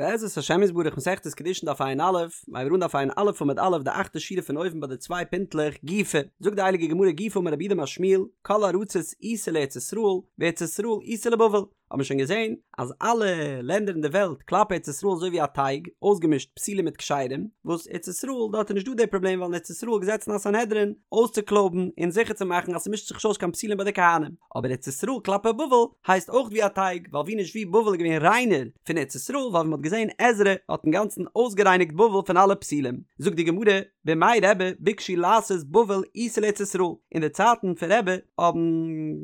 בעזרת השם יתברך מסכת קידושין דף ע"א, מיר הייבן אן דף ע"א עמוד א' די אכטע שורה פון אויבן ביי די צוויי פינטלעך גופא, זאגט די הייליגע גמרא גופא אמר רב יהודה אמר שמואל, כל ארצות איתא לארץ ישראל, וארץ ישראל איתא לבבל, האט מען שוין געזען אז אלע לענדער אין די וועלט כלפי ארץ ישראל אזוי ווי א טייג, אויסגעמישט פסולים מיט כשרים, וואס ארץ ישראל דארט איז נישט דא די פראבלעם ווייל אין ארץ ישראל געזעצן א סנהדרין אויסצוקלויבן און זיכער צו מאכן אז ס'מישט זיך נישט אויס קיין פסולים ביי די כהנים, אבער ארץ ישראל כלפי בבל הייסט אויך ווי א טייג, ווייל ווי נישט ווי בבל איז געווען ריינער פון ארץ ישראל, ווייל ווי מ'האט געזען עזרא האט אינגאנצן אויסגערייניגט בבל פון אלע פסולים. זאגט די גמרא, בימי רבי ביקשו לעשות בבל איתא לארץ ישראל, אין די צייטן פון רבי האבן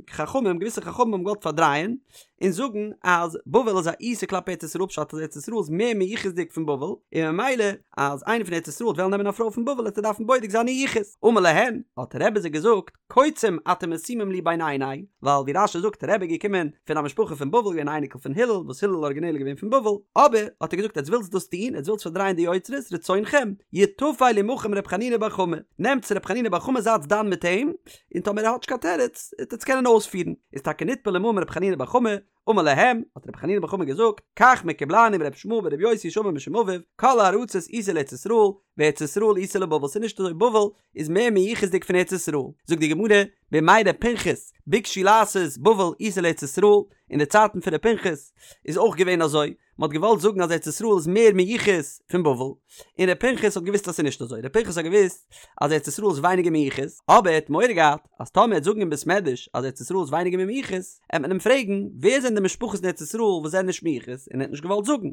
חכמים, געוויסע חכמים האבן געוואלט פארדרייען און זאגן אז בבל איז א איתא כלפי ארץ ישראל פשט אז ארץ ישראל איז מער מיוחס'דיג פון בבל, און ממילא אז איינער פון ארץ ישראל וועט וועלן נעמען א פרוי פון בבל וועט ער דארפן בודק זיין איר יחוס. אמר להן, האט רבי זיי געזאגט, קוצים אתם משימים לי בין עיני, ווייל ווי רש"י זאגט רבי איז געקומען פון א משפחה פון בבל געווען א אייניקל פון הלל וואס הלל אריגינעל איז געווען פון בבל, אבער האט ער געזאגט עטס ווילטס דאס טון עטס ווילטס פארדרייען די יוצרות רצונכם יטפל עמכם ר' חנינא בר חמא, נעמטס ר' חנינא בר חמא זייטס דן מיט אים, און טאמער ער האט נישט קיין תירוץ וועט עטס קענען אויספירן, איז טאקע נטפל עמהם ר' חנינא בר חמא, אמר להם, האט רבי חנינא בר חמא געזאגט, כך מקובלני מרבי ישמעאל ברבי יוסי שאמר משום אביו, כל הארצות איתא לארץ ישראל, וארץ ישראל איתא לבבל, ס'איז נישט אזוי בבל איז מער מיוחס'דיג פון ארץ ישראל, זאגט די גמרא, בימי ר' פנחס, ביקשו לעשות בבל איתא לארץ ישראל, אין די צייטן פון ר' פנחס איז אויך געווען אזוי, מען האט געוואלט זאגן אז ארץ ישראל איז מער מיוחס פון בבל, און ר' פנחס האט געוואוסט אז ס'איז נישט אזוי, ר' פנחס האט געוואוסט אז ארץ ישראל איז ווייניגער מיוחס, אבער ער האט מורא געהאט אז טאמער ער וועט זאגן אין בית מדרש אז ארץ ישראל איז ווייניגער מיוחס, עט מען אים פרעגן ווער זענען די משפחות אין ארץ ישראל וואס זענען נישט מיוחס, און ער האט נישט געוואלט זאגן.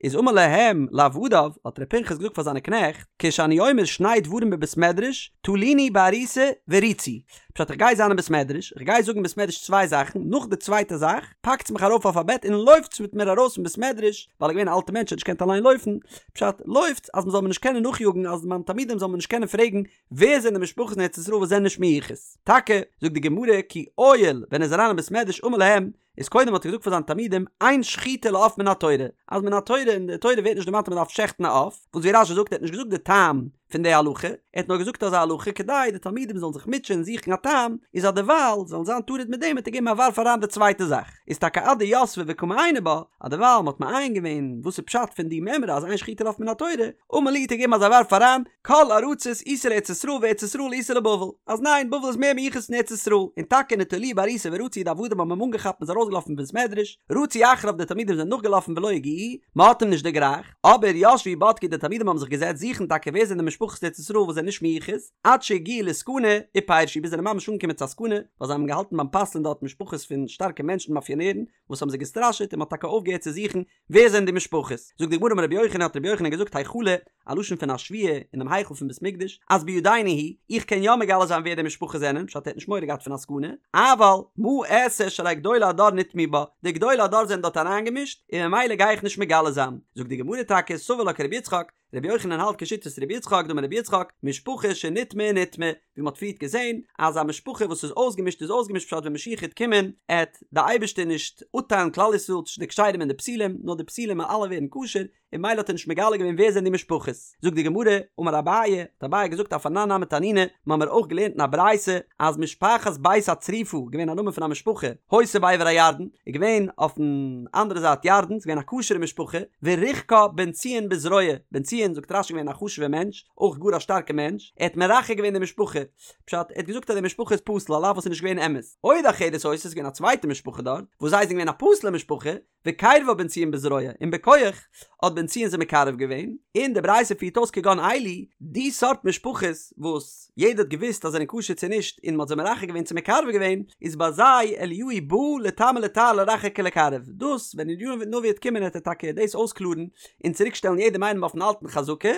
איז אמר להם לעבדיו, האט ר' פנחס געזאגט פאר זיינע קנעכט, כשאני אומר שני דברים בבית מדרש, תלוני בעריסה ורוצו, פשט איך גיי זיין אין בית מדרש, איך גיי זאגן אין בית מדרש צוויי זאכן, נאך די צווייטע זאך, פאקטס מיך ארויף אויף א בעט און לויפטס מיט מיר ארויס פון בית מדרש, ווייל ער איז געווען א אלטע מענטש ער האט נישט געקענט אליין לויפן, פשט, לויפטס אז מען זאל מיר נישט קענען נאכיאגן אז מיינע תלמידים זאלן מיר נישט קענען פרעגן ווער זענען די משפחות אין ארץ ישראל וואס זענען נישט מיוחס. טאקע, זאגט די גמרא, כי עייל, ווען ער איז אריין אין בית מדרש אמר להם, איז קודם האט ער געזאגט פאר זיינע תלמידים אין שחיטה לעוף מן התורה, אז מן התורה אין די תורה ווערט נישט דערמאנט אז מען דארף שעכטן א עוף, וואס ווי רש"י זאגט ער האט נישט געזאגט די טעם פון די הלכה, ער האט נאר געזאגט אזא הלכה כדי די תלמידים זאלן זיך מוטשען און זוכן א טעם, איז אז דערווייל זאלן זיין טרוד מיט דעם האט ער געגעבן א ווארף אריין די צווייטע זאך, איז טאקע עד דיתבי וקא מעייני בה, אז דערווייל מען האט מעיין געווען וואס איז פשט פון די מימרא אז אין שחיטה לעוף מן התורה, אמר להו האט ער געגעבן אזא ווארף אריין, כל ארצות איתא לארץ ישראל וארץ ישראל איתא לבבל, אז ניין בבל איז מער מיוחס פון ארץ ישראל, און טאקע נטלוהו בעריסה ורצו די עבדים האבן אים אנגעכאפט מ'איז ארויסגעלאפן פון בית מדרש, רצו אחריו די תלמידים זענען נאכגעלאפן ולא הגיעוהו, מ'האט אים נישט דערגרייכט, אבער ישבו ובדקו די תלמידים האבן זיך געזעצט זוכן טאקע ווער זענען די משפחות אין ארץ ישראל וואס זענען נישט מיוחס, עד שהגיעו לסכנה ופירשו ביז זיי זענען ממש אנגעקומען צו א סכנה, ווייל זיי האבן געהאלטן ביים פסל'ן דארט משפחות פון שטארקע מענטשן מאפיאנערן וואס האבן זיי געסטראשעט און מ'האט טאקע אויפגעהערט צו זוכן ווער זענען די משפחות? זאגט די גמרא אמר רבי יוחנן האט רבי יוחנן געזאגט היכלא, א לשון פון א שבועה אינעם היכל פון בית מקדש, אז בידינו הוא, איך קען יא מגלה זיין ווער די משפחות זענען, פשט ער האט נישט מורא געהאט פון א סכנה, אבל מה אעשה שהרי גדולי הדור נטמעו בה, די גדולי הדור זענען דארט אריינגעמישט, און ממילא גיי איך נישט מגלה זיין. זאגט די גמרא טאקע סבר לה כרבי יצחק, רבי יוחנן האלט כשיטת רבי יצחק דאמר רבי יצחק, משפחה שנטמעה נטמעה, ווי מ'האט פריערט געזען אז א משפחה וואס איז אויסגעמישט איז אויסגעמישט פשט ווען משיח העט קומען עט די אייבערשטער נישט אפטיילן כלל ישראל צווישן די כשרים און די פסולים נאר די פסולים וועלן אלע ווערן כשר און ממילא האט ער נישט מגלה געווען ווער זענען די משפחות. זאגט די גמרא, אמר אביי, האט אביי געזאגט אף אנן נמי תנינא, מ'האמיר אויך געלערנט אין א ברייתא אז משפחת בית הצריפה, געווען א נאמען פון א משפחה, היתה בעבר הירדן, איז געווען אויפן אנדערע זייט ירדן, ס'איז געווען א כשר'ע משפחה, וריחקה בן ציון בזרוע, בן ציון זאגט רש"י געווען א חשוב'ע מענטש, אויך גאר א שטארקע מענטש, ער האט מרחק געווען די משפחה, פשט, ער האט געזאגט אז די משפחה איז פסול על אף וואס איז נישט געווען אמת, עוד אחרת היתה ס'איז געווען א צווייטע משפחה דארט, וואס זיי זענען געווען א פסול'ע משפחה, וקירבה בן ציון בזרוע, און בכח האט בן ציון זיי מקרב געווען, און די ברייתא פירט אויס כגון אלו, די סארט משפחות וואס יעדער האט געוואוסט אז זענען כשר צו נישט און מען האט זיי מרחק געווען צו מקרב געווען, איז ביי זיי אליהו בא לטמא לטהר לרחק ולקרב, דאס ווען אליהו הנביא וועט קומען וועט ער טאקע דאס אויסקלארן און צוריק שטעלן יעדעם איינעם אויפן אלטן חזקה,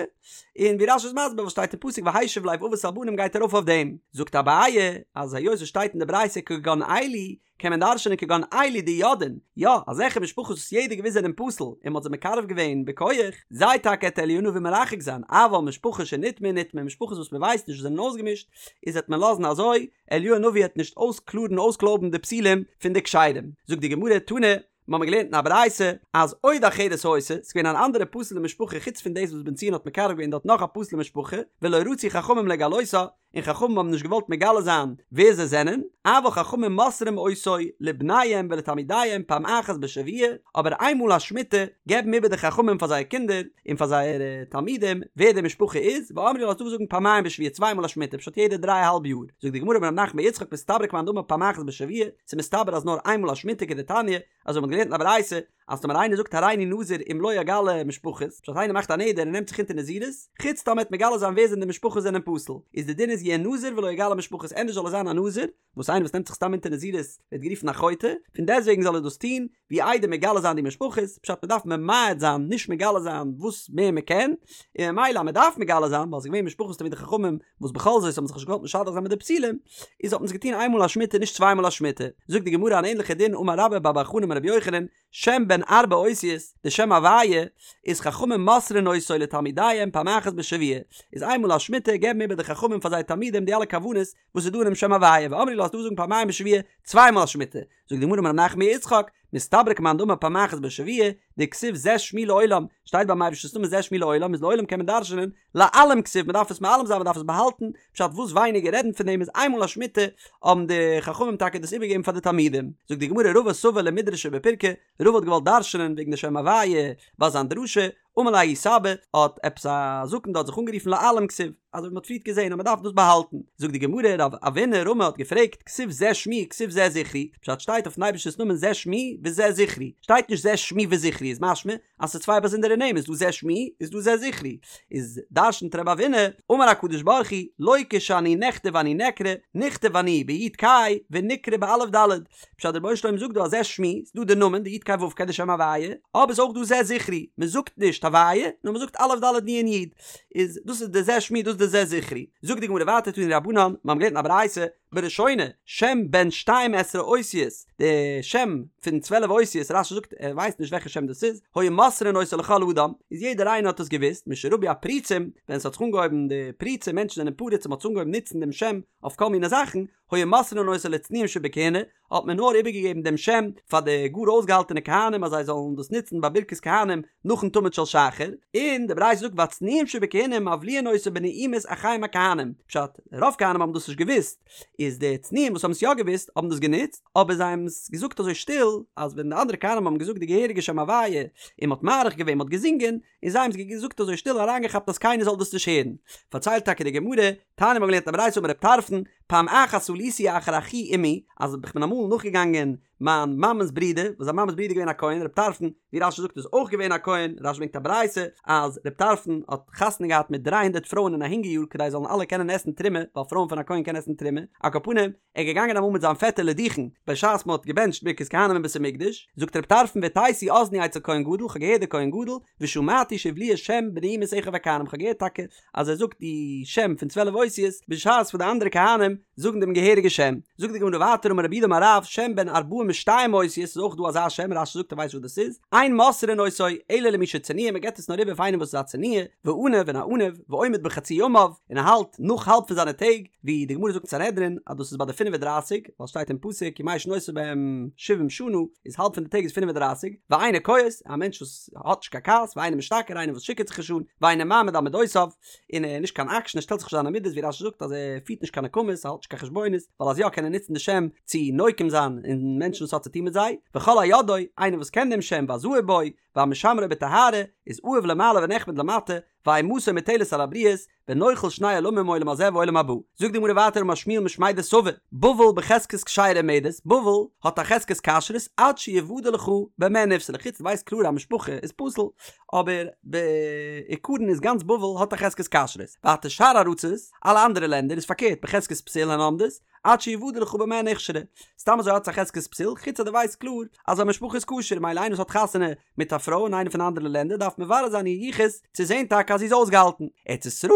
און ווי רש"י איז מסביר וואס שטייט אין פסוק והשיב לב אבות על בנים גייט ארויף אויף דעם, זאגט אביי אז היות עס שטייט אין די ברייתא כגון אלו קען מען דרש'נען כגון אלו דידעין, יא, אזעלכע משפחות וואס יעדער געוויסט זענען פסול און מ'האט זיי מקרב געווען בכח, זיי טאקע עט אליהו הנביא מרחק זיין, אבל משפחה שנטמעה נטמעה, משפחות וואס מ'ווייסט נישט וואס זענען אויסגעמישט, איז עט מען לאזן אזוי, אליהו הנביא העט נישט אויסקלארן אויסקלויבן די פסולים פון די כשרים. זאגט די גמרא, תנא, מ'האמיר געלערנט אין א ברייתא, אז עוד אחרת היתה, ס'איז געווען אן אנדערע פסול'ע משפחה חוץ פון דאס וואס בן ציון האט מקרב געווען דארט נאך א פסול'ע משפחה, ולא רצו חכמים לגלותה, און און חכמים האבן נישט געוואלט מגלה זיין ווער זיי זענען, אבל חכמים מוסרים אותו לבניהם ולתלמידיהם פעם אחת בשבוע, אבער איינמאל א שמיטה געבן איבער די חכמים פאר זייער קינדער און פאר זייערע תלמידים ווער די משפחה איז, ואמרי לה ס'דא וואס זאגן פעמיים בשבוע צוויי מאל א שמיטה פשט יעדע דריי אהאלב יאר, זאגט די גמרא אמר רב נחמן בר יצחק מסתברא כמאן דאמר פעם אחת בשבוע, ס'איז מסתבר אז נאר איינמאל א שמיטה כדתניא, אזוי מ'האט געלערנט אין א ברייתא אז טאמער איינער זאגט הריני נזיר אם לא אגלה משפחות, פשט איינער מאכט א נדר און נעמט זיך אונטער נזירות, חוץ טאמער ער וועט מגלה זיין ווער זענען די משפחות זענען פסול, איז די דין איז יהא נזיר ולא יגלה משפחות ענדערש זאל ער זיין א נזיר, וואס איינער וואס נעמט זיך סתם אונטער נזירות ווערט גערופן א חוטא, פון דעסטוועגן זאל ער דאס טון, ווי איידער מגלה זיין די משפחות, פשט מ'דארף ממעט זיין נישט מגלה זיין וואס מער מ'קען, און ממילא אז מ'דארף מגלה זיין ווייל ס'איז געווען משפחות תלמידי חכמים וואס בכל זאת האבן זיך נישט געוואלט משדך זיין מיט די פסולים, איז האט מען עס געטון איינמאל א שמיטה נישט צוויי מאל א שמיטה. זאגט די גמרא אן ענליכע דין אמר רבה בר בר חנה אמר רבי יוחנן, שם בן ארבע אותיות, די שם הוויה, איז חכמים מוסרין אותו לתלמידיהם פעם אחת בשבוע, איז איינמאל א שמיטה געבן איבער די חכמים פאר זייער תלמידים די אלע כוונות וואס איז דא אינעם שם הוויה, ואמרי לה ס'דא וואס זאגן פעמיים בשבוע, צוויי מאל א שמיטה. זאגט די גמרא אמר רב נחמן בר יצחק, מסתברא כמאן דאמר פעם אחת בשבוע, דכתיב זה שמי לעולם, שטייט ביים אייבערשטנ'ס נאמען זה שמי לעולם, איז לעולם קען מען דרש'נען, להעלים כתיב, מען דארף עס מעלים זיין, מען דארף עס באהאלטן, פשט וואס ווייניגער רעדן פון דעם איז איינמאל א שמיטה, האבן די חכמים טאקע דאס איבערגעגעבן פאר די תלמידים. זאגט די גמרא רבא סבר למידרשיה בפירקא, רבא האט געוואלט דרש'נען וועגן די שם הוויה ביי זיין דרשה, אמר ליה ההוא סבא, האט עפעס א זקן דארט זיך אנגערופן להעלים כתיב, אזוי ווי מען האט פריערט געזען אז מען דארף דאס באהאלטן. זאגט די גמרא, רב אבינא רמי האט געפרעגט, כתיב זה שמי כתיב זה זכרי, פשט שטייט אויפן אייבערשטענס נאמען זה שמי וזה זכרי, שטייט נישט זה שמי וזכרי איז משמע אז ס'איז צוויי באזונדערע נעמען, איז דא זה שמי איז דא זה זכרי, איז דרשנ'ט רב אבינא, אמר הקדוש ברוך הוא, לא כשאני נכתב אני נקרא, נכתב אני ביו"ד קיי ונקרא באלף דלת, פשט דער רבונו של עולם זאגט דא אז זה שמי, ס'איז דא די נאמען די יו"ד קיי ו' קיי די שם הוויה, אבער ס'איז אויך דא זה זכרי, מ'זאגט נישט הוויה, נאר מ'זאגט אלף דלת נון יו"ד, איז דאס איז די זה שמי דאס איז די זה זכרי. זאגט די גמרא ווייטער תנו רבנן, מיר האבן געלערנט אין א ברייתא, בראשונה, שם בן שתים עשרה אותיות, די שם פון צוועלף אותיות, רש"י זאגט ער ווייסט נישט וועלכע שם דאס איז, היו מוסרין אותו לכל אדם, איז יעדער איינער האט עס געוואוסט, משרבו הפרוצים, ווען ס'האט זיך אנגעהויבן די פריצים, מענטשן זענען פרוץ און מ'האט אנגעהויבן נוצן דעם שם אויף כל מיני זאכן, היו מוסרין אותו לצנועים שבכהונה, האט מען נאר איבערגעגעבן דעם שם פאר די גאר אויסגעהאלטענע כהנים אז זיי זאלן דאס נוצן ביי ברכת כהנים נאכן תמיד של שחר, און די ברייתא זאגט והצנועים שבכהונה מבליעין אותו בנעימת אחיהם הכהנים, פשט, רוב כהנים האבן דאס נישט געוואוסט, איז די צנועים וואס האבן עס יא געוואוסט האבן דאס גענוצט, אבער זיי האבן עס געזאגט אזוי שטיל, אז ווען די אנדערע כהנים האבן געזאגט די געהעריגע שם הוויה, און מען האט מאריך געווען, מען האט געזינגען, און זיי האבן עס געזאגט אזוי שטיל אריינגעכאפט אז קיינער זאל דאס נישט הערן. פארציילט טאקע די גמרא, תניא מ'האט געלערנט א ברייתא אמר רב טרפון, פעם אחת עליתי אחר אחי אמי, אז איך בין אמאל נאכגעגאנגען מיין מאמע'ס ברודער, וואס זיין מאמע'ס ברודער איז געווען א כהן, רב טרפון, ווי רש"י זאגט איז אויך געווען א כהן, רש"י ברענגט א ברייתא אז רב טרפון האט חתונה געהאט מיט דריי הונדערט פרויען אין א הונגער יאר כדי זאלן אלע קענען עסן תרומה, ווייל פרויען פון א כהן קענען עסן תרומה, על כל פנים, ער איז געגאנגען אמאל מיט זיין פעטער לדוכן, בשעת מען האט געבענטשט ברכת כהנים אין בית המקדש, זאגט רב טרפון והטתי אזני אצל כהן גדול, כ'האב געהערט די כהן גדול, ושמעתי שהבליע שם בנעימת אחיו הכהנים, כ'האב געהערט טאקע אז ער זאגט די שם פון צוועלף אותיות, בשעת וואס די אנדערע כהנים זאגן דעם געהעריגע שם. זאגט די גמרא ווייטער אמר רב יהודה אמר רב, שם בן ארבעים ושתיים אותיות, איז אויך דא אזא שם, רש"י זאגט ער ווייסט וואס דאס איז, אין מוסרין אותו אלא למי שצנוע, מען געבט עס נאר איבער פאר איינעם וואס איז א צנוע, ועניו און א עניו, ועומד בחצי ימיו, און ער האלט נאך האלב פון זיינע טעג, ווי די גמרא זאגט אין סנהדרין אז דאס איז ביי די פינף און דרייסיג, ווייל שטייט אין פסוק ימי שנותיו בהם שבעים שנה, איז האלב פון די טעג איז פינף און דרייסיג, ואינו כועס, א מענטש וואס האט נישט קיין כעס, ואינו משתכר, איינער וואס שיכור'ט זיך נישט אן, ואינו מעמיד על מדותיו, און ער איז נישט קיין עקשן, ער שטעלט זיך נישט זיינע מידות, ווי רש"י זאגט אז ער פירט נישט קיין נקמות, ער האלט נישט קיין חשבונות, ווייל אז יא קען ער נוצן די שם צו נוקם זיין אין מענטשן וואס האט צו טון מיט זיי, וכל היודעו, איינער וואס קען דעם שם והזהיר בו, והמשמרו בטהרה, איז אהוב למעלה ונחמד למטה, ואימתו מוטלת על הבריות, ונוחל שני עולמים עולם הזה ועולם הבא. זאגט די גמרא ווייטער אמר שמואל משמיה דסבא, בבל בחזקת כשרה עומדת, בבל האט א חזקת כשרות עד שיוודע לך במה נפסלה, חוץ דו ווייסט קלאר א משפחה איז פסול, אבער בעיקרון איז גאנץ בבל האט א חזקת כשרות, ווייטער שאר ארצות, אלע אנדערע לענדער איז פארקערט בחזקת פסול הן עומדות, עד שיוודע לך במה נכשרה. סתם אזוי האט עס א חזקת פסול, חוץ אז דו ווייסט קלאר אז א משפחה איז כשר, מילא איינער וואס האט חתונה מיט א פרוי אין איינע פון די אנדערע לענדער דארף מברר זיין איר יחוס צו זען טאקע אז זי איז אויסגעהאלטן. ארץ ישראל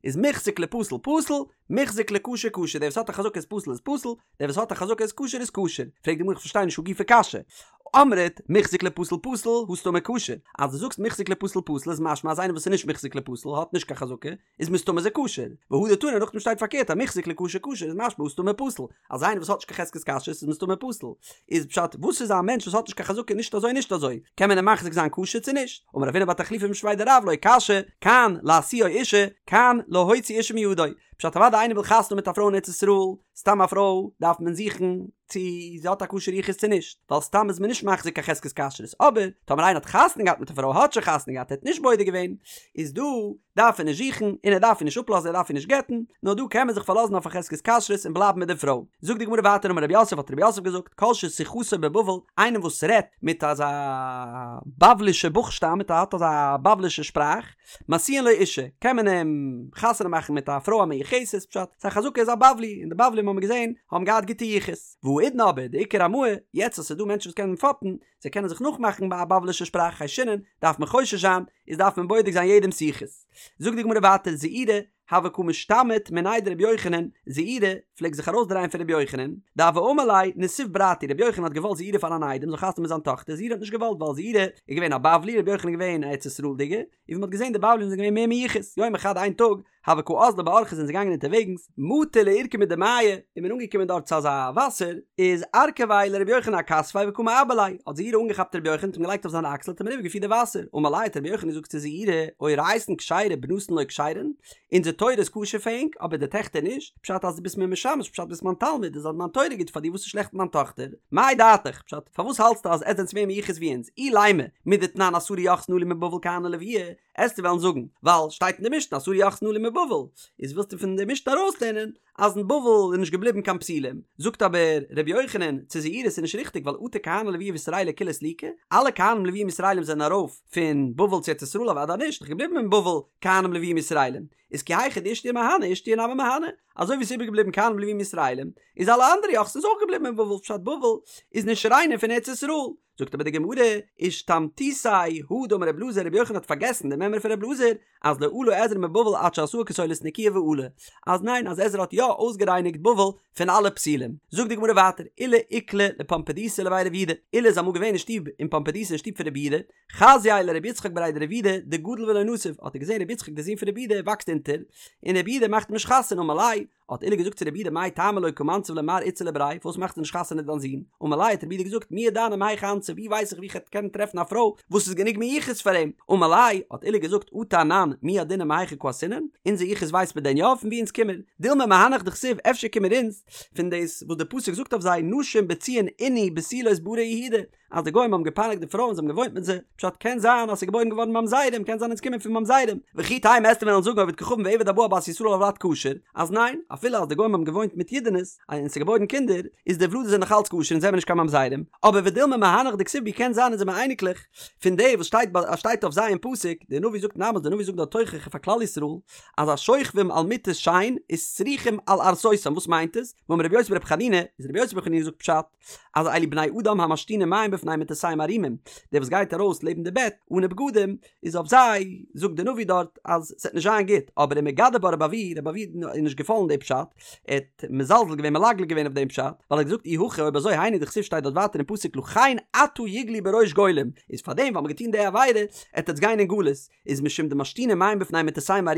איז מוחזק לפסול פסול, מוחזק לכשר כשר, דער וואס האט א חזקה איז פסול איז פסול, דער וואס האט א חזקה איז כשר איז כשר. פרעגט די גמרא איך פארשטיי נישט הא גופא קשיא. אמרת מוחזק לפסול פסול הא סתמא כשר, אז דו זאגסט מוחזק לפסול פסול איז משמע אז איינער וואס איז נישט מוחזק לפסול האט נישט קיין חזקה, איז מסתמא איז ער כשר, והדר תני נאכדעם שטייט פארקערט אז מוחזק לכשר כשר איז משמע הא סתמא פסול, אז איינער וואס האט נישט קיין חזקת כשרות איז מסתמא פסול, איז פשט וואס איז א מענטש וואס האט נישט קיין חזקה נישט אזוי נישט אזוי, קען מען אים מחזיק זיין כשר צו נישט? אמר רב הונא בר תחליפא משמיה דרב לא קשיא, כאן להשיאו אישה, כאן להוציא אישה מידו. פשט אוודאי איינער וויל חתונה מיט א פרוי אין ארץ ישראל, סתם א פרוי דארף מען זוכן צו זי האט א כשר יחוס צו נישט, ווייל סתם איז מען נישט מחזיק קיין חזקת כשרות, אבער טאמער איינער האט חתונה געהאט מיט א פרוי האט שוין חתונה געהאט ער האט נישט בודק געווען, איז דא דארף ער נישט זוכן און ער דארף איר נישט אפלאזן ער דארף איר נישט גט'ן, נאר דא קען מען זיך פארלאזן אויף א חזקת כשרות און בלייבן מיט די פרוי. זאגט די גמרא ווייטער אמר רב יוסף האט רב יוסף געזאגט כל ששיחתו בבבל איינער וואס רעדט מיט אזא בבלישע בוכשטאב מיט א האט אזא בבלישע שפראך משיאין לו אישה קען מען אים חתונה מאכן מיט א פרוי א מיוחסת פשט ס'איז א חזקה איז א בבלי און די בבלים האבן מיר געזען האבן געהאט גוטע יחוס והאידנא אבער דאיכא רמאי יעצט אז ס'איז דא מענטשן וואס קענען פאפן זיי קענען זיך נאכמאכן ביי א בבלישע שפראך חיישינן דארף מען חושש זיין איז דארף מען בודק זיין יעדעמ'ס יחוס זאגט די גמרא ווייטער זעירי הוה קא משתמיט מיניה דרבי יוחנן, זעירי פלעגט זיך ארויסדרייען פון רבי יוחנן, דהוה אמר ליה נסיב ברתי, רבי יוחנן האט געוואלט זעירי פאר אן איידעם זאל חתונה מיט זיין טאכטער, זעירי האט נישט געוואלט ווייל זעירי איז געווען א בבלי, רבי יוחנן איז געווען א ארץ ישראל'דיגער, און ווי מ'האט געזען די בבלים זענען געווען מער מיוחס, יומא חד איין טאג, הוו קא אזלי באורחא זענען זיי געגאנגען אונטערוועגנס, מטו לעורקא מדמיא, איז מען אנגעקומען דארט צו אזא וואסער, איז ארכביה לרבי יוחנן אכתפיה וקא מעבר ליה, האט זעירי אנגעכאפט רבי יוחנן האט אים געלייגט אויף זיין אקסל האט אים אריבער געפירט די וואסער, אמר ליה האט רבי יוחנן געזאגט צו זעירי, אורייתן כשרה בנתן לא כשרן, אונזער תורה איז כשר פאר ענק, אבער די טעכטער נישט, פשט אז דו ביסט מיר משמש, פשט ביסט מיין תלמיד, איז אז מיין תורה גוט פאר דיר וואס איז שלעכט מיט מיין טאכטער? מאי דעתיך, פשט פארוואס האלטסטו אז עטס זענטס מער מיוחס ווי אונז, אילימא, מדתנן עשרה יוחסין עלו מבבל כהני לויי, עסטו וועלן זאגן, ווייל שטייט אין די משנה עשרה יוחסין עלו מבבל, איז ווילסטו פון די משנה ארויסלערנען אז אין בבל איז נישט געבליבן קיין פסולים, זאגט אבער ר' יוחנן צו זעירי ס'איז נישט ריכטיג ווייל אטו כהני לויי וישראלי כולהו סליקו, אלע כהנים לוויים ישראלים זענען ארויף פון בבל צו ארץ ישראל אוודאי נישט, נאך געבליבן אין בבל כהנים לוויים ישראלים, איז כי היכי דאישתיור מהני אישתיור נמי מהני, אזוי ווי ס'איז איבערגעבליבן כהנים לוויים ישראלים, איז אלע אנדערע יוחסין איז אויך געבליבן אין בבל פשט בבל איז נישט ריינער פון ארץ ישראל. זאגט אבער די גמרא, אישתמטותיה הא דאמר רב אלעזר רבי יוחנן האט פארגעסן די מימרא פון רב אלעזר אז לא עלה עזרא מבבל עד שעשאה כסולת נקיה ועלה, אז ניין אז עזרא האט יא אויסגערייניגט בבל פון אלע פסולים. זאגט די גמרא ווייטער, עולא איקלע לפומבדיתא לבי רב יהודה, עולא איז אמאל געווען אין שטוב אין פומבדיתא אין שטוב פון רב יהודה, חזייה לרבי יצחק בריה דרב יהודה דגדיל ולא נסיב, האט ער געזען רבי יצחק דער זון פון רב יהודה וואקסט אונטער, און רב יהודה מאכט אים נישט חתונה אמר ליה, האט עולא געזאגט צו רב יהודה מאי טעמא לא קא מנסיב ליה מר איתתא לבריה פארוואס מאכסטו נישט חתונה דיין זון? אמר ליה האט רב יהודה געזאגט מי ידענא מהיכא אנסיב ווי ווייס איך ווי כ'עט קענען טרעפן א פרוי וואס איז גענוג מיוחס פאר אים? אמר ליה האט עולא געזאגט אטו אנן מי ידעינן מהיכא קאתינן אונזער יחוס ווייסט מען דען יא פון ווי אונז קומען? דילמא מהנך דכתיב אפשר קומען אונז פון דאס וואס די פסוק זאגט אויף זיי נשים בציון ענו בתולות בערי יהודה אז די גוים האבן געפייניגט די פרויען זיי האבן געוואוינט מיט זיי, פשט קען זיין אז ס'איז געבוירן געווארן ממזרים, קען זיין אונז קומען פון ממזרים, וכי תימא עסטו וועלן זאגן עובד כוכבים ועבד הבא על בת ישראל הולד כשר, אז ניין, אפילו אז די גוים האבן געוואוינט מיט אידענעס, און ס'איז געבוירן קינדער, איז די ולדות זענען נאך אלץ כשר אונז זעמער נישט קיין ממזרים, אבער ודילמא מהנך דכתיב בהו קען זיין אונז זעמער אייניקלעך פון די וואס שטייט ביי שטייט אויף זיי אין פסוק, די נביא זאגט אין עמוס די נביא זאגט דארט תוכחה פאר כלל ישראל, אז השוכבים על מטות שן איז סרוחים על ערסותם וואס מיינט עס? ואמר רבי יוסי ברבי חנינא, איז רבי יוסי ברבי חנינא זאגט פשט, אז אלו בני אדם המשתינים מים בפני מטותיהם ערומים, דער וואס גייט ארויס לעבן די בעט אנע בגדים, איז אויף זיי זאגט דער נביא דארט אז ס'וועט נישט זיין גוט, אבער ומגדף בה רבי אבהו, רבי אבהו איז נישט געפאלן די פשט, ער האט מזלזל געווען מלגלג געווען אויף דעם פשט, ווייל ער האט געזאגט אי הכי אויב אזוי היינו דכתיב שטייט דארט ווייטער אין פסוק לכן עתה יגלו בראש גולים, איז פארדעם ווייל מ'האט געטון די עבירה עט עטס גיין אין גלות, איז משום דמשתינין מים בפני מטותיהם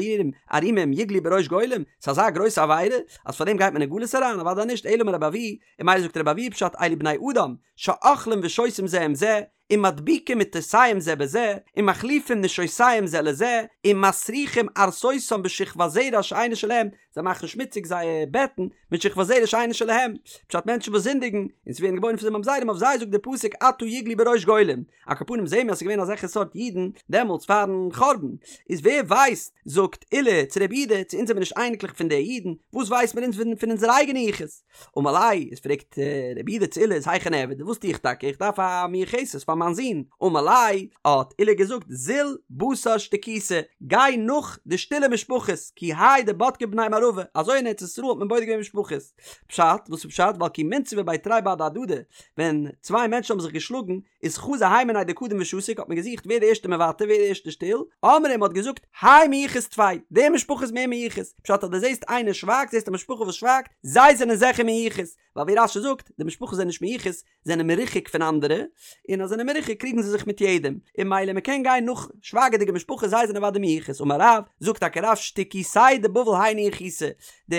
ערומים יגלו בראש גולים, ס'איז אזא גרויסע עבירה אז פארדעם גייט מען אין גלות אריין? אוודאי נישט, אלא אמר רבי אבהו, און ממילא זאגט רבי אבהו פשט אלו בני אדם שאוכלים ושותים זה עם זה ומדביקים מטותיהם זה בזה ומחליפים נשותיהם זה לזה ומסריחים ערסותם בשכבת זרע שאינה שלהם זיי מאכן שמוציג זייער בעטן מיט שכבת זרע שאינה שלהם פשט מענטשן וואס זינדיגן און ס'ווערן געבוירן פון זיי ממזרים אויף זיי זאגט דער פסוק עתה יגלו בראש גולים על כל פנים זעהן מיר אז ס'איז געווען אזעלכע סארט אידן דעמאלטס פארן חורבן איז ווער ווייסט זאגט עולא צו רב יהודה צו אונז זעמיר נישט אייניקלעך פון די אידן וואס ווייסט מיר אונז פון אונזער אייגענע יחוס אמר ליה, איז פרעגט רב יהודה צו עולא איז היכי נעביד, וואס טו איך טאקע, איך דארף א מיוחסת פאר מיין זון, אמר ליה, האט עולא געזאגט, זיל בתר שתיקותא, גיי נאך די שטילע משפחות, כי האי דבדקי בני מערבא, אזוי אין ארץ ישראל האט מען בודק געווען משפחות, פשט, וואס איז פשט, ווייל כי מינסבא בי תרי בהדי הדדי, ווען צוויי מענטשן האבן זיך געשלאגן, איז חזו הי מינייהו דקדים ושתיק האט מען געזוכט ווער די ערשטע מוותר ווער די ערשטע שטיל, אמרי מ'האט געזאגט האי מיוחס טפי, די משפחה איז מער מיוחס, פשט אז דו זעסט איינער שווייגט זעסט א משפחה וואס שווייגט, זיי זענען זיכער מיוחס, ווייל ווי רש"י זאגט, די משפחות זענען נישט מיוחס, זענען מרוחק פון אנדערע, און אז זענען מרוחק קריגן זיי זיך מיט יעדעם, און ממילא מ'קען גיין נאך שווייגעדיגע משפחות זיי זענען אוודאי מיוחס, אמר רב, זאגט טאקע רב שתיקותייהו דבבל היינו יחוסא, די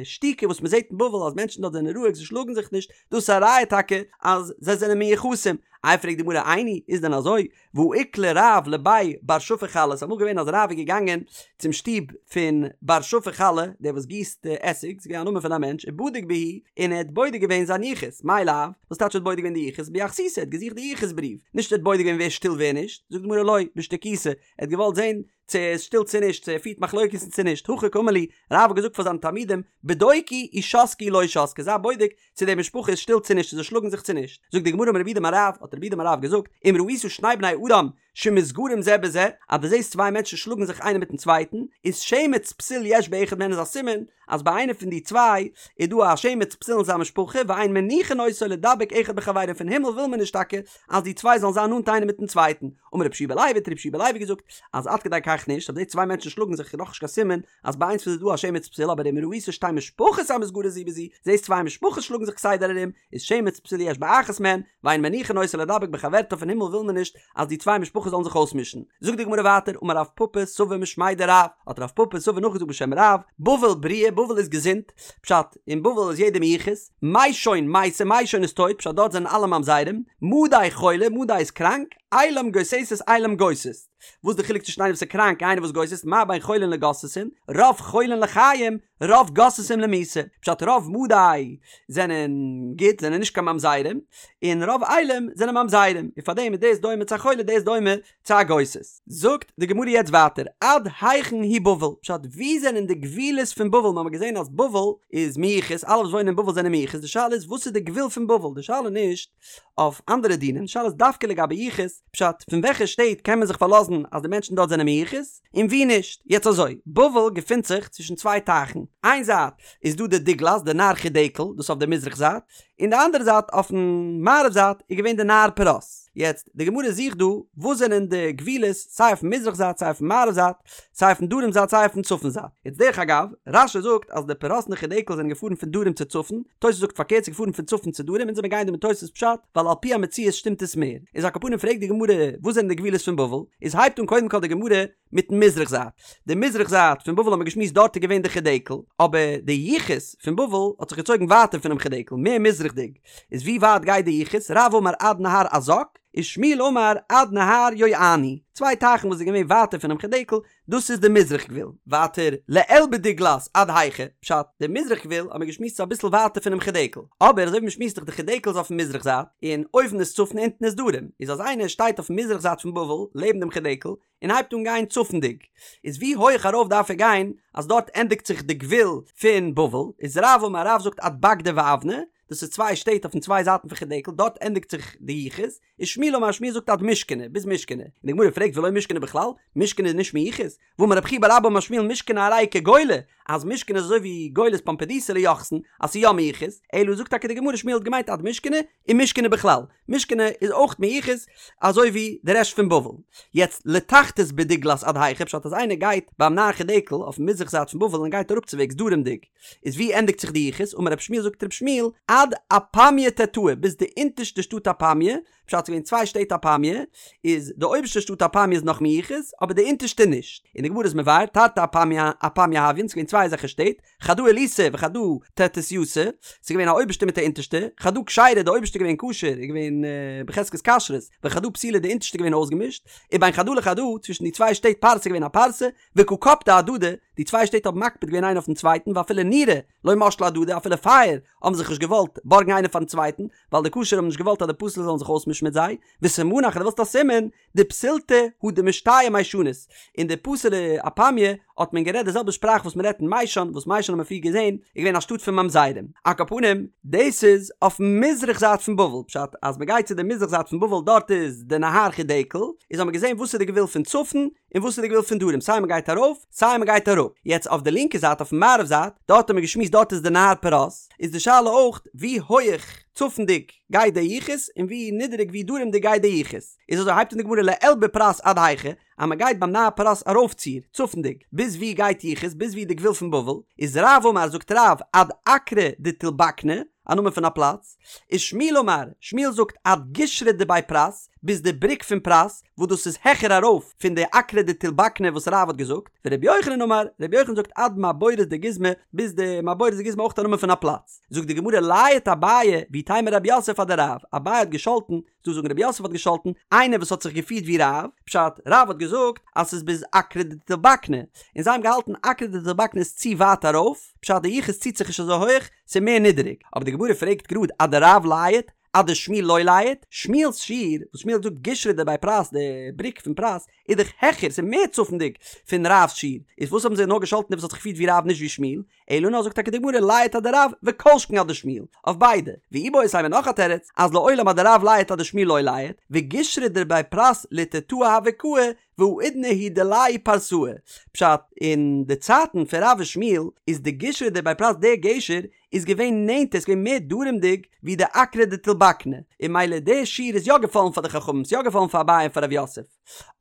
שתיקה וואס מ'זעט אין בבל אז מענטשן דארט זענען רואיג זיי שלאגן זיך נישט, דאס איז א ראיה טאקע אז זיי זענען מיוחסים. איי פרעגט די גמרא איני, איז דען אזוי? והא איקלע רב לבי בר שפי חלה, ס'איז אמאל געווען אז רב איז געגאנגען צום שטוב פון בר שפי חלה, דער וואס גיסט עסיג, ס'איז געווען א נאמען פון א מענטש, ובדיק בהו, און ער האט בודק געווען זיין יחוס, מאי לאו, וואס טייטש ער האט בודק געווען די יחוס? ביחסותא, ער האט געזוכט די יחוס בריוו, נישט ער האט בודק געווען ווער שטיל ווער נישט, זאגט די גמרא לא, בשתיקותא, ער האט געוואלט זען צו ער איז שטיל צו נישט, צו ער פירט מחלוקת'ן צו נישט, הכי קאמר להו, רב האט געזאגט פאר זיינע תלמידים, בדוקו אי שתקי אי לא שתקי, זיי בודק צו די משפחה איז שטיל צו נישט, צו זיי שלאגן זיך צו נישט. זאגט די גמרא אמר רב יהודה אמר רב, האט רב יהודה אמר רב געזאגט, אם ראית שני בני אדם שמתגרים זה בזה, אז דו זעסט צוויי מענטשן שלאגן זיך איינער מיטן צווייטן, איז שמץ פסול יש באחד מהן איז א סימן אז ביי איינער פון די צוויי איז דא א שמץ פסול אין זיין משפחה, ואין מניחין אותו לידבק אחד בחבירו פון הימל וויל מען נישט טאקע אז די צוויי זאלן זיין נאנט איינער מיטן צווייטן. אמר רבי יהושע בן לוי האט רבי יהושע בן לוי געזאגט אז עד כדי כך נישט, אז די צוויי מענטשן שלאגן זיך איז נאכנישט קיין סימן אז ביי איינס פון זיי איז דא א שמץ פסול אבער אם ראית שתי משפחות המתגרות זו בזו, זעסט צוויי משפחות שלאגן זיך כסדר ארום, איז שמץ פסול יש באחת מהן, ואין מניחין אותה לידבק בחברתה פון הימל וויל מען נישט אז די צוויי משפחות זאלן זיך אויסמישן. זאגט די גמרא ווייטער אמר רב פפא סבא משמיה דרב, האט רב פפא סבא נאכגעזאגט בשם רב, בבל בריאה, בבל איז געזונט, פשט, אין בבל איז יעדער מיוחס, מישון מתה, מישון איז טויט, פשט דארט זענען אלע ממזרים, מדי חולה, מדי איז קראנק, עילם גוססת עילם גוסס. וואס די חילוק צווישן איינער וואס איז קראנק און איינער וואס גוסס'ט, מה בין חולין לגוססין, רוב חולין לחיים, רוב גוססים למיתה, פשט רוב מדי זענען גוט, זענען נישט קיין ממזרים, און רוב עילם זענען ממזרים, און פארדעם איז דאס דומה צו א חולה דאס דומה צו א גוסס. זאגט די גמרא יעצט ווייטער, עד היכן היא בבל, פשט ווי זענען די גבולות פון בבל, מ'האמער געזען אז בבל איז מיוחס, אלע וואס וואוינען אין בבל זענען מיוחס, די שאלה איז וואס איז די גבול פון בבל, די שאלה נישט אויף אנדערע דינים, די שאלה איז דווקא לגבי יחוס, פשט, פון וועלכע שטעט קען מען זיך פארלאזן אז די מענטשן דארט זענען מיוחס, און ווי נישט? יעצט אזוי, בבל געפינט זיך צווישן צוויי טייכן, איין זייט איז דא די דגלת, די נהר חידקל, דאס אויף די מזרח זייט, און די אנדערע זייט אויפן מערב זייט איז געווען די נהר פרת. יעצט, די גמרא זוכט דא וואס זענען די גבולות סיי אויפן מזרח זייט סיי אויפן מערב זייט, סיי אויפן דרום זייט סיי אויפן צפון זייט. יעצט דרך אגב, רש"י זאגט אז די פרת און די חידקל זענען געפארן פון דרום צו צפון, תוס' זאגט פארקערט ס'איז געפארן פון צפון צו דרום, אונז זעמיר גייען דא מיט תוס' פשט, ווייל על פי המציאות שטימט עס מער. איז על כל פנים פרעגט די גמרא וואס זענען די גבולות פון בבל, איז הייבט אן קודם כל די גמרא מיטן מזרח זייט. די מזרח זייט פון בבל האט מען געשמועסט דארט איז געווען די חידקל, אבער די יחוס פון בבל האט זיך געצויגן ווייטער פונעם חידקל, מער מזרח'דיג. איז ווי ווייט גייט די יחוס? רב אמר עד נהר עזק, ושמואל אמר עד נהר יואני, צוויי טייכן וואס איז געווען ווייטער פונעם חידקל, דאס איז די מזרח גבול. ווייטער לעיל בדגלת עד היכא, פשט, די מזרח גבול האט מען געשמועסט איז אביסל ווייטער פונעם חידקל, אבער אזוי ווי מען שמועסט דאך די חידקל איז אויפן מזרח זייט, און אויבן איז צפון אונטן איז דרום, איז אז איינער שטייט אויפן מזרח זייט פון בבל לעבן דעם חידקל, און הייבט אן גיין צפונדיג, איז ווי הויך ארויף דארף ער גיין אז דארט ענדיגט זיך די גבול פון בבל, איז רב אמר רב זאגט עד בגדא ואוונא, דאס איז צוויי שטעט אויפן צוויי זייטן פון חידקל, דארט ענדיגט זיך די יחוס, ושמואל אמר שמואל זאגט עד מושכנא, ביז מושכנא, און די גמרא פרעגט ולא מושכנא בכלל, מושכנא איז נישט מיוחס, והאמר רב חייא בר אבא אמר שמואל מושכנא הרי היא כגולה, אז מושכנא איז אזוי ווי גולת פומבדיתא ליוחסין, אז ס'איז יא מיוחס, אלא זאגט טאקע די גמרא שמואל האט געמיינט עד מושכנא, און מושכנא בכלל, מושכנא איז אויך מיוחס אזוי ווי די רעשט פון בבל. יעצט לתחתית בדגלת עד היכא פשט אז איינער גייט ביים נהר חידקל אויפן מזרח זייט פון בבל און גייט אראפצווועגס דרומדיג איז ווי ענדיגט זיך די יחוס אמר רב שמואל זאגט רב שמואל עד אפמיא תתאה ביז די אונטערשטע שטאט אפמיא פשט ס'איז געווען צוויי שטעט אפמיא איז די אויבערשטע שטאט אפמיא איז נאך מיוחס אבער די אונטערשטע נישט און די גמרא איז מבאר תרתי אפמיא אפמיא הויין ס'איז געווען צוויי אזעלכע שטעט חדא עילתא וחדא תתייתא, ס'איז געווען א אויבערשטע מיט א אונטערשטע, חדא כשרה די אויבערשטע געווען כשר איז געווען בחזקת כשרות, וחדא פסולה די אונטערשטע געווען אויסגעמישט, ובין חדא לחדא צווישן די צוויי שטעט פרסה איז געווען א פרסה, וקא קפדי אהדדי, די צוויי שטעט האבן מקפיד געווען איינער אויפן צווייטן ואפילו נורא לא משלי אהדדי אפילו פייער האבן זיך נישט געוואלט בארגן איינער פארן צווייטן, ווייל די כשר'ע האבן נישט געוואלט אז די פסול'ע זאלן זיך אויסמישן מיט זיי, וסימנך אז דו ווילסט א סימן, דפסולתא הא דמשתייא מיישנית, אין די פסול'ע אפמיא האט מען גערעדט די זעלבע שפראך וואס מען רעדט אין מיישן, וואס מיישן האט מען פריער געזען איז געווען א שטאט פון ממזרים. על כל פנים, דאס איז אויפן מזרח זייט פון בבל, פשט אז מען גייט צו די מזרח זייט פון בבל דארט איז די נהר חידקל, איז האט מען געזען וואס איז די גבול פון צפון און וואס איז די גבול פון דרום, סיי מען גייט ארויף סיי מען גייט אראפ. יעצט אויף די לינקע זייט אויפן מערב זייט, דארט האט מען געשמועסט דארט איז די נהר פרת, איז די שאלה אויך ווי הויעך צפונדיג גייט די יחוס און ווי נידעריג ווי דרומדיג גייט די יחוס. איז אזוי הייבט אן די גמרא לעיל בפרת עד היכא, אז מען גייט ביים נהר פרת ארויפציר, צפונדיג, ביז ווי גייט יחוס, ביז ווי די גבול פון בבל, איז רב אמר זאגט רב עד אקרא דתולבקני, א נאמען פון א פלאץ, ושמואל אמר, שמואל זאגט עד גישרא דבי פרת, ביז די בריק פון פרת, וואס דאס איז העכער ארויף פון די אקרא דתולבקני וואס רב האט געזאגט, ורבי יוחנן אמר, רבי יוחנן זאגט עד מעבורת דגיזמא, ביז די מעבורת דגיזמא אויך א נאמען פון א פלאץ. זאגט די גמרא לייט אביי ואיתימא רב יוסף אדרב, אביי האט געשאלטן, ס'דא זאגן רב יוסף האט געשאלטן, איינער וואס האט זיך געפירט ווי רב, פשט, רב האט געזאגט אז ס'איז ביז אקרא דתולבקני, און זיי האבן געהאלטן אקרא דתולבקני איז צו ווייט ארויף, פשט די יחוס ציט זיך נישט אזוי הויך, ס'איז מער נידעריג. אבער די גמרא פרעגט גראד אדרב לייט, אדשמואל לא לייט, שמואל'ס שיעור, וואס שמואל האט געזאגט גישרא דבי פרת, די בריק פון פרת, איז דאך העכער, ס'איז מער צפונדיג פון רב'ס שיעור, איז וואס האבן זיי נאר געשאלטן דער וואס האט זיך געפירט ווי רב נישט ווי שמואל, אלא נאר זאגט טאקע די גמרא לייט אדרב וכל שכן אדשמואל, אויף ביידע, ואיבעית אימא נאך א תירוץ, אז לעולם אדרב לייט אדשמואל לא לייט, וגישרא דבי פרת לתתאי הוה קאי, והאידנא הוא דיליה פרסאי, פשט, אין די צייטן פון רב ושמואל איז די גישרא דבי פרת דער גשר איז געווען נענטער, ס'איז געווען מער דרומ'דיג ווי די אקרא דתולבקני, און ממילא דער שיעור איז יא געפאלן פאר די חכמים, ס'איז יא געפאלן פאר אביי און פאר רב יוסף.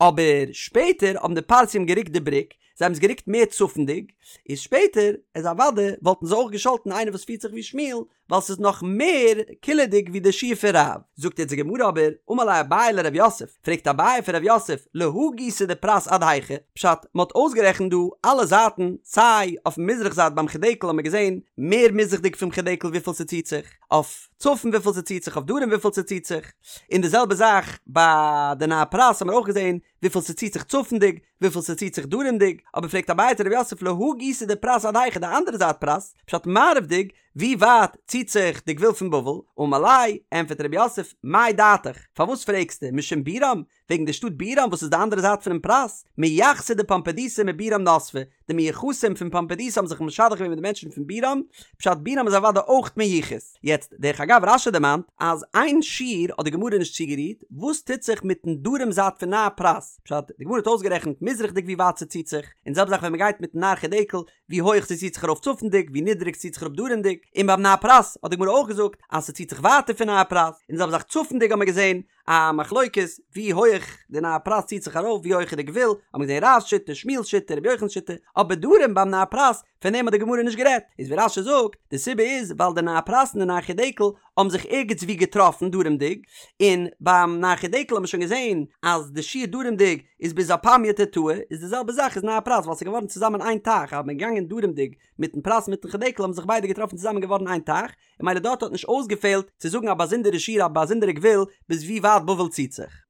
אבער שפעטער האבן די פרסים גערוקט די בריק, זיי האבן עס גערוקט מער צפונ'דיג, איז שפעטער איז אוודאי וואלטן זיי אויך געשאלטן איינער וואס פירט זיך ווי שמואל, ווייל ס'איז נאך מער קילעדיג ווי די שיעור פון רב. זאגט יעצט די גמרא אבער, אמר ליה אביי לרב יוסף, פרעגט אביי פון רב יוסף, להא גיסא דפרת עד היכא? פשט, מ'האט אויסגערעכנט דא אלע זייטן, סיי אויפן מזרח זייט ביים חידקל האט מען געזען מער מזרח'דיג פון חידקל וויפיל ס'ציט זיך, אויף צפון וויפיל ס'ציט זיך, אויף דרום וויפיל ס'ציט זיך, און די זעלבע זאך ביי די נהר פרת האט מען אויך געזען וויפיל ס'ציט זיך צפונ'דיג, וויפיל ס'ציט זיך דרומ'דיג, אבער פרעגט אביי צו רב יוסף להא גיסא דפרת עד היכא די אנדערע זייט פרת, פשט מערב'דיג, ווי ווייט ציט זיך די גבול פון בבל? אמר ליה, ענטפערט רב יוסף, מאי דעתיך, פארוואס פרעגסטו, משום בירם, וועגן די שטאט בירם וואס איז די אנדערע זייט פונעם פרת, מיחסי דפומבדיתא מבירם נסבי, די מיוחסים פון פומבדיתא האבן זיך משדך געווען מיט די מענטשן פון בירם, פשט בירם איז אוודאי אויך מיוחס. יעצט, דרך אגב רש"י דערמאנט אז איין שיעור האט די גמרא נישט צוגערירט, וואס טוט זיך מיטן דרום זייט פון נהר פרת? פשט, די גמרא האט אויסגערעכנט מזרח'דיג ווי ווייט ס'ציט זיך, און די זעלבע זאך ווען מ'גייט מיטן נהר חידקל, ווי הויך ס'ציט זיך ארויף צפונ'דיג, ווי נידריג ס'ציט זיך אראפ דרומ'דיג, און ביים נהר פרת האט די גמרא אויך געזאגט אז ס'ציט זיך ווייטער פון נהר פרת, און די זעלבע זאך צפונ'דיג האט מען געזען א מחלוקת ווי הויך די נהר פרת ציט זיך ארויף ווי הויך איז די גבול, האט מען געזען רב'ס שיטה, שמואל'ס שיטה, רבי יוחנן'ס שיטה, אבער דרום ביים נהר פרת פון דעם האט די גמרא נישט גערעדט, איז ווי רש"י זאגט, די סיבה איז ווייל די נהר פרת און די נהר חידקל האבן זיך ערגעץ ווי געטראפן דרומ'דיג, און ביים נהר חידקל האט מען שוין געזען אז די שיעור דרומ'דיג איז ביז אפמיא תתאי, איז די זעלבע זאך איז נהר פרת ווייל ס'איז געווארן צוזאמען איין טייך, אז מ'איז געגאנגען דרומ'דיג מיטן פרת מיטן חידקל האבן זיך ביידע געטראפן צוזאמען געווארן איין טייך, און ממילא דארט האט נישט אויסגעפעלט צו זאגן א באזונדערע שיעור א באזונדערע גבול ביז ווי ווייט בבל ציט זיך.